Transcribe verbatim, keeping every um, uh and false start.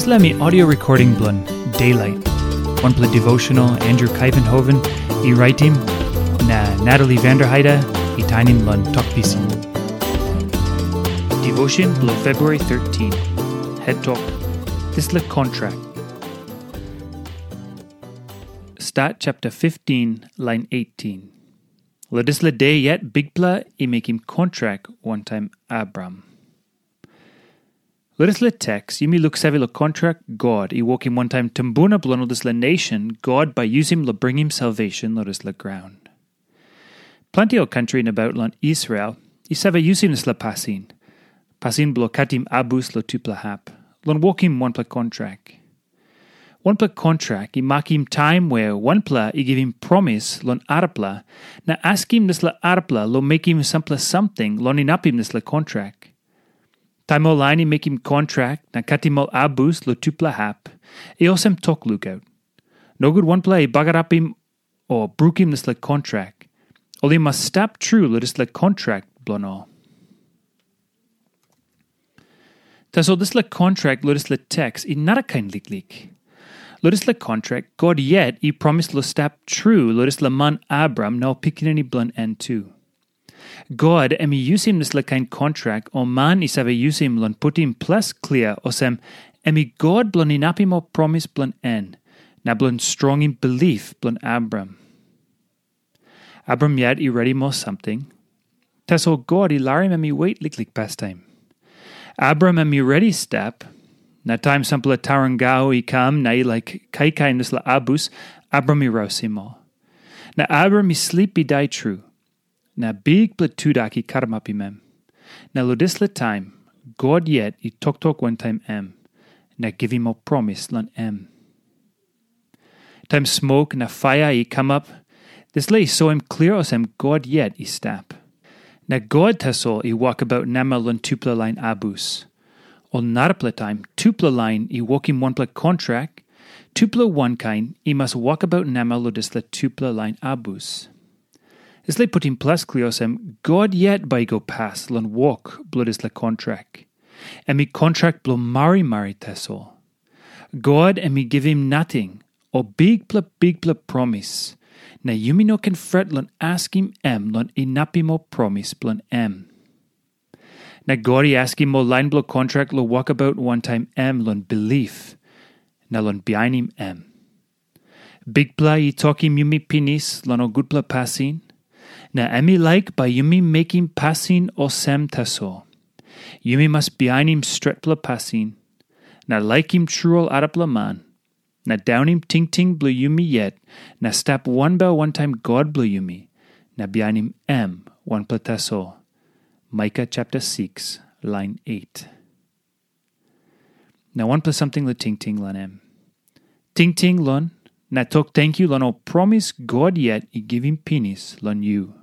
Dispela mi audio recording bilong Daylight. Wanpela devotional Andrew Kaivenhoven i raitim, na Natalie Vanderheide i tainim long tok pisin. Devotion bilong February thirteen. Het tok, dispela kontrak. Stat chapter fifteen, line eighteen. Lo dispela de yet Bikpela i mekim kontrak wantaim Abram. Lo dispela teks, yumi luksave lo kontrak God i wokim wantaim tumbuna bilong ol dispela nation God bai yusim lo bringim salvation lo dispela graun. Planti ol kantri nabaut long Israel i save yusim dispela pasin, pasin bilong katim abus lo tupela hap, long wokim wanpela kontrak. Wanpela kontrak i makim taim wea wanpela i givim promis long arapela na askim dispela arapela long mekim sampela samting long inapim dispela kontrak. Taim ol lain i mekim kontrak na katim ol abus long tupela hap, i olsem tok lukaut. Nogut wanpela i bagarapim o brukim dispela kontrak, ol i mas stap tru long dispela kontrak bilong ol. Tasol dispela kontrak long dispela teks i narakain liklik. Long dispela kontrak, God yet i promis long stap tru long dispela man Abram na ol pikinini bilong en tu. God em i yusim dispela kain kontrak ol man i save yusim long putim ples klia olsem, em i God bilong inapim ol promis bilong en, na bilong strongim bilip bilong Abram. Abram yet i redim ol samting, tasol God i larim em i wet liklik pastaim. Abram em i redi stap, na taim sampela tarangau i kam na i laik kaikaim dispela abus, Abram i rausim ol. Na Abram i slip i dai tru, na bikpela tudak i karamapim em. Na long dispela taim, God yet i toktok wantaim em, na givim ol promis long em. Taim smok na paia i kamap, dispela i soim klia olsem God yet i stap. Na God tasol i wokabaut namel long tupela lain abus. Ol narapela taim tupela lain i wokim wanpela kontrak, tupela wankain i mas wokabaut namel long dispela tupela lain abus. Dispela i putim ples klia olsem God yet bai i go pas long wok bilong dispela kontrak. Em i kontrak bilong marimari tasol. God em i givim nating, o bikpela bikpela promis, na yumi no ken fret long askim em long inapim ol promis bilong em. Na God i askim ol lain bilong kontrak long wokabaut wantaim em long bilip, na long bihainim em. Bikpela i tokim yumi pinis long ol gutpela pasin, na em i laik bai yumi mekim pasin olsem tasol. Yumi mas bihainim stretpela pasin, na laikim tru ol arapela man, na daunim tingting bilong yumi yet, na stap wanbel wantaim God bilong yumi, na bihainim em wanpela tasol. Micah chapter six, line eight. Na wanpela samting long tingting long em. Tingting long, na tok tenkyu long ol promis God yet i givim pinis long yu.